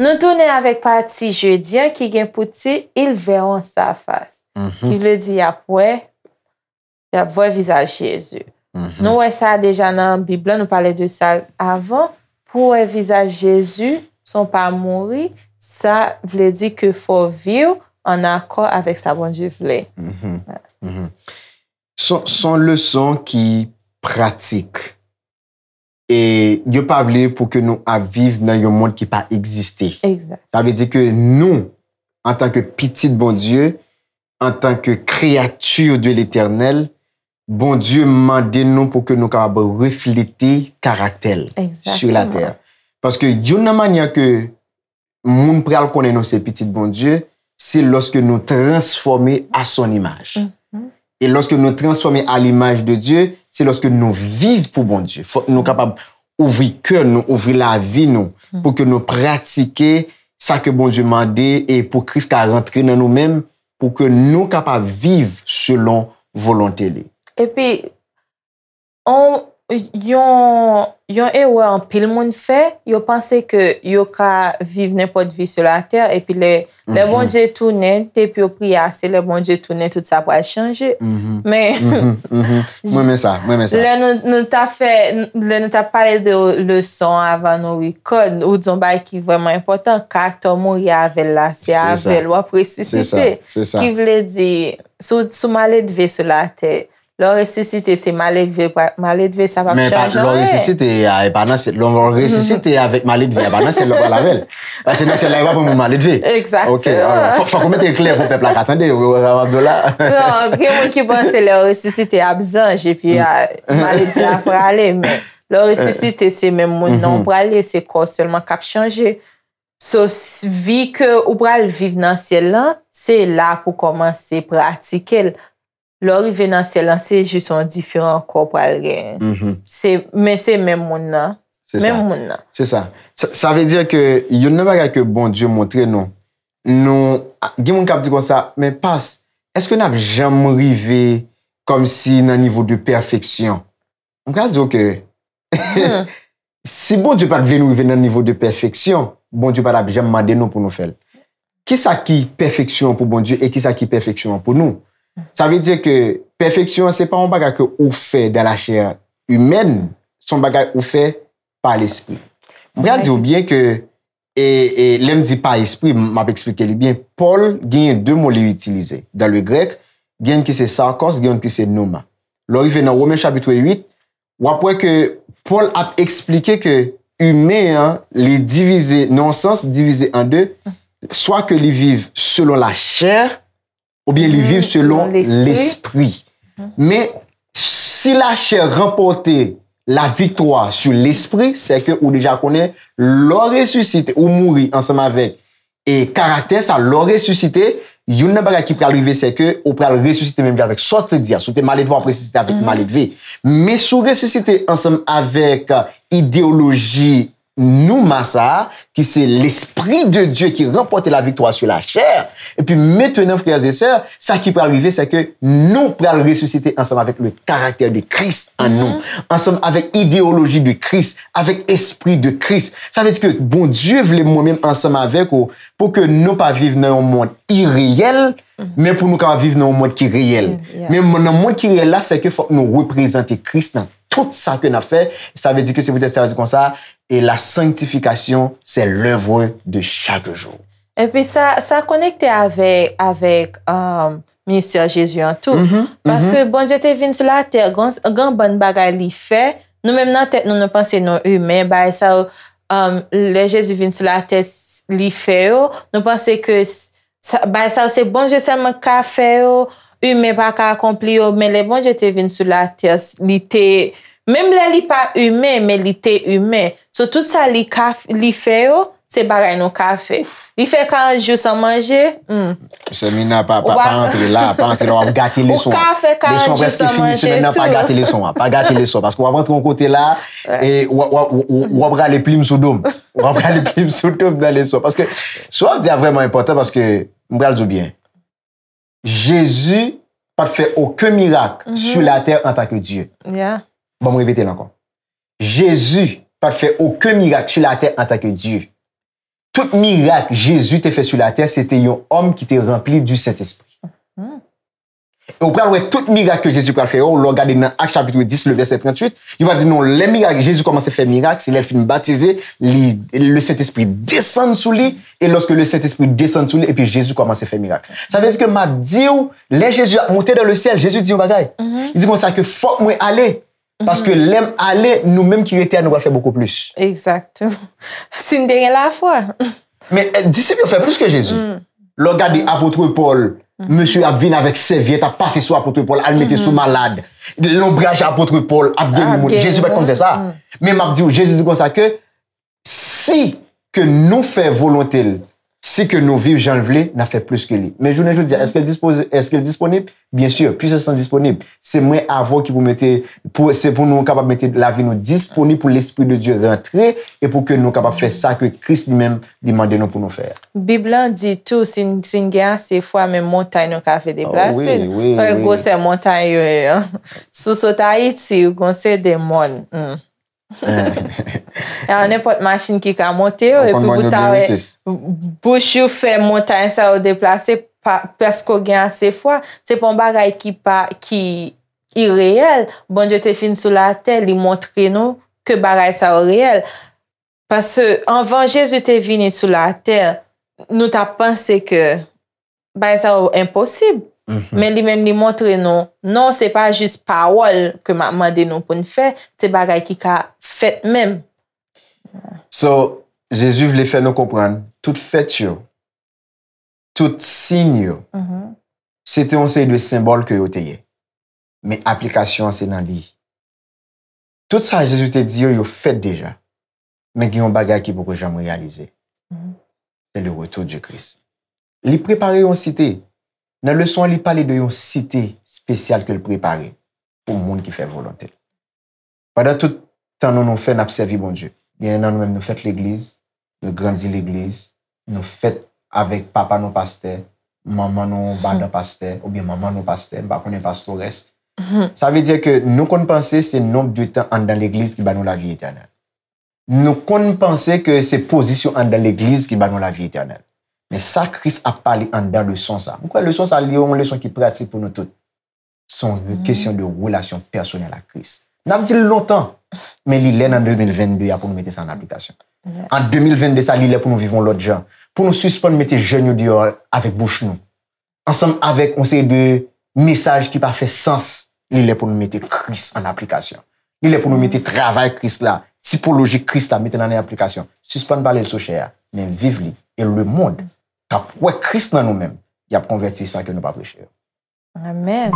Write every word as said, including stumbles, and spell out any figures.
Nou tounen avèk pati jedi an ki gen pou tit Ils verront sa face, ki vle di y ap wè, y ap wè vizaj Jezi. Nou wè sa deja nan Bib la, nou pale de sa avan. Pou wè vizaj Jezi san w pa mouri, sa vle di ke fò w viv an akò avèk sa Bondye vle. Se se yon leson ki pratik. E yo pa vle pou ke nou ap viv nan yon mond ki pa egziste. Egzak. Sa vle di ke nou, antanke pitit Bondye, antanke créature de l'Éternel, Bondye mande nou pou ke nou kapab reflete karaktè l sur la terre. Paske youn nan manyè ke moun pral konnen nou se pitit Bondye, se lòske nou transfòme à son image. E lòske nou transfòme à l'image de Dieu, se lòske nou viv pou Bondye. Fòk nou kapab ouvri kè nou, ouvri lavi nou, pou ke nou pratike sa ke Bondye mande e pou Kris ka rantre nan nou menm, pou ke nou kapab viv selon volonte li. Epi, on, yon, yon erè anpil moun fè, yo panse ke yo ka viv nenpòt vi sou latè, epi lè, lè Bondye tounen, depi yo priye ase, lè Bondye tounen, tout sa pral chanje. Men, Mwen renmen sa, mwen renmen sa. Lè nou, nou t ap fè, lè nou t ap pale de leson avan nou record, ou di yon bagay ki vrèman enpòtan, karaktè w mouri avè l la, se avè l w ap resisite. Ki vle di, si w, si w maledve sou latè, lè w resisite, se maledve, maledve sa p ap chanje anyen. Men lè w resisite a, e pa nan syèl, lè w resisite avèk maledve a, e pa nan syèl la w pral avè l. Paske nan syèl la, yo pa pran moun maledve. Egzakteman. Ok, fòk ou mete l klè pou pèp la ka tande, ou wè sa m ap di w la. Non, gen moun ki panse lè w resisite ap zanj, epi maledve a prale, men lè w resisite, se menm moun nan w prale, se kò w sèlman k ap chanje. So, vi ke ou pral viv nan syèl lan, se la pou kòmanse pratike l. Lè w rive nan syèl lan, se jis yon diferan kò w pral genyen. Se, men se menm moun nan. Menm moun nan. Se sa. Sa vle di ke youn nan bagay ke Bondye montre nou, nou, gen moun k ap di konsa, men pas, èske n ap janm rive kòmsi nan nivo de pèfeksyon? M pral di w ke si Bondye pa t vle nou rive nan nivo de pèfeksyon, Bondye pa t ap janm mande nou pou nou fè l. Kisa ki pèfeksyon an pou Bondye e kisa ki pèfeksyon an pou nou? Sa vle di ke pèfeksyon an se pa yon bagay ke ou fè dans la chair humaine, se yon bagay ou fè pa lespri. M pral di w byen ke, e, e lè m di pa espri, m ap eksplike li byen. Pòl genyen de mo li itilize. Dans le grec, gen youn ki se sarkos, gen youn ki se pneuma. Lè w rive nan Women chapit uit, w ap wè ke Pòl ap eksplike ke imen an, li divize, nan yon sans, divize an de, swa ke li viv selon lachè, oubyen li viv selon lespri. Men, si lachè ranpòte la viktwa sou lespri, sèke ou deja konnen, lè w resisite, ou mouri ansanm avèk e karaktè sa, lè w resisite, youn nan bagay ki pral rive, se ke ou pral resisite menm jan avèk sa w te di a. Si w te maledve, w ap resisite avèk maledve. Men si w resisite ansanm avèk, e, ideyoloji pneuma sa a, ki se l'Esprit de Dieu ki ranpòte la viktwa sou lachè, epi mentnan, frères et sœurs, sa ki pral rive, se ke nou pral resisite ansanm avèk le caractère de Christ an nou, ansanm avèk ideyoloji de Kris, avèk espri de Kris. Sa vle di ke Bondye vle mwen menm ansanm avèk ou, pou ke nou pa viv nan yon mond ireyèl, men pou nou kapab viv nan yon mond ki reyèl. Men nan mond ki reyèl la, se ke fòk nou reprezante Kris nan tout sa ke n ap fè. Sa vle di ke se poutèt sa yo di konsa, et la sanctification, c'est l'œuvre de chaque jour. Epi sa, sa konekte avèk, avèk, um, ministè Jezi an tou. Paske Bondye te vin sou latè, gen, gen bann bagay li fè. Nou menm nan tèt nou, nou panse nou imen, bagay sa yo, um, lè Jezi vin sou latè, li fè yo, nou panse ke s-, sa, bagay sa yo se Bondye sèlman k ka fè yo, imen pa ka akonpli yo, men lè Bondye te vin sou latè, li te, menm lè li pa imen, men li te imen. So, tout sa li ka f-, li fè yo, se bagay nou ka fè. Li fè karant jou san manje, hmm. Semina, pa, pa, pa antre la, pa antre la, w ap gate leson an. Ou ka fè karant jou san manje tou. Leson an prèske fini, semèn nan, pa gate leson an, pa gate leson an, paske w ap antre yon kote la, e w ap, w ap, w ap, w ap rale plim sou do m. W ap rale plim sou do m nan leson an. Paske sa w ap di a vrèman enpòtan, paske m pral di w byen. Jezi pa t fè okenn mirak sur la terre en tant que Dieu. Yeah. Ban m repete l ankò. Jezi pa t fè okenn mirak sur la terre en tant que Dieu. Tout mirak Jezi te fè sur la terre, se te yon òm ki te ranpli du Sentespri. E ou pral wè tout mirak ke Jezi pral fè yo, lè w gade nan Ak chapit dis, le vèsè tranntuit, yo va di non, lè mirak, Jezi kòmanse fè mirak, se lè l fin batize, li, le Sentespri desann sou li, e lòske le Sentespri desann sou li, epi Jezi kòmanse fè mirak. Sa vle di ke m ap di w, lè Jezi ap monte dans le ciel, Jezi di yon bagay. Li di konsa ke fòk mwen ale, paske lè m ale, nou menm ki rete a, nou pral fè bokou plis. Exactement. Si n te gen lafwa. Men eh, disip yo fè plis ke Jezi. Lè w gade apot Pòl, mesye ap vin avèk sèvyèt, ap pase sou apot Pòl, al mete sou malad. Lonbraj apot Pòl ap geri moun. Jezi pa t konn fè sa. Men m ap di w, Jezi di konsa ke si ke nou fè volonte l, si ke nou viv jan l vle, n ap fè plis ke li. Men jounen jodi a, èske l dispoze, èske l disponib? Byen si, pwisans lan disponib. Se mwen avè w ki pou mete, pou, se pou nou kapab mete lavi nou disponib pou Lespri de Dye rantre e pou ke nou kapab fè sa ke Kris li menm li mande nou pou nou fè a. Bib lan di tou, si n si n gen ase fwa, menm montay nou ka fè deplase. Wè gwosè montay yo ye an. Si w sot Ayiti, ou gon se de mòn. A nenpòt machin ki ka monte yo, epi pou ta wè bouch ou fè montay sa yo deplase, paske w gen ase fwa. Se pa yon bagay ki pa, ki ireyèl. Bondye te vin sou latè, li montre nou ke bagay sa yo reyèl. Paske anvan Jezi te vini sou latè, nou t ap panse ke bagay sa yo enposib. Men li menm li montre nou, non, se pa jis pawòl ke m ap mande nou pou n fè, se bagay ki ka fèt menm. So, Jezi vle fè nou konprann, tout fèt yo, tout siy yo, se te yon seri de senbòl ke yo te ye. Men aplikasyon an se nan li. Tout sa Jezi te di yo, yo fèt deja. Men gen yon bagay ki poko janm reyalize. Se le retour du Christ. Li prepare yon site. Nan leson an, li pale de yon site espesyal ke l prepare pou moun ki fè volonte l. Pandan tout tan nou, nou fè, n ap sèvi Bondye. Gen nan nou menm, nou fèt legliz, nou grandi legliz, nou fèt avèk papa nou pastè, manman nou madan pastè, oubyen manman nou pastè, m pa konnen pastorès. Sa vle di ke nou konn panse se nonb de tan anndan legliz ki ba nou lavi etènèl. Nou konn panse ke se pozisyon anndan legliz ki ba nou lavi etènèl. Men sa Kris ap pale anndan leson sa. M kwè leson sa li yon leson ki pratik pou nou tout. Se yon kesyon de relasyon pèsonèl ak Kris. N ap di l lontan, men li lè nan de mil vennde a pou nou mete sa an aplikasyon. An de mil vennde sa, li lè pou nou viv yon lòt jan. Pou nou sispann mete jèn yo deyò avèk bouch nou. Ansanm avèk yon seri de mesaj ki pa fè sans, li lè pou nou mete Kris an aplikasyon. Li lè pou nou mete travay Kris la, tipoloji Kris la, mete l an aplikasyon. Sispann pale l sou chè a, men viv li. E lemonn k ap wè Kris nan nou menm, y ap konvèti san ke nou pa preche yo. Amèn.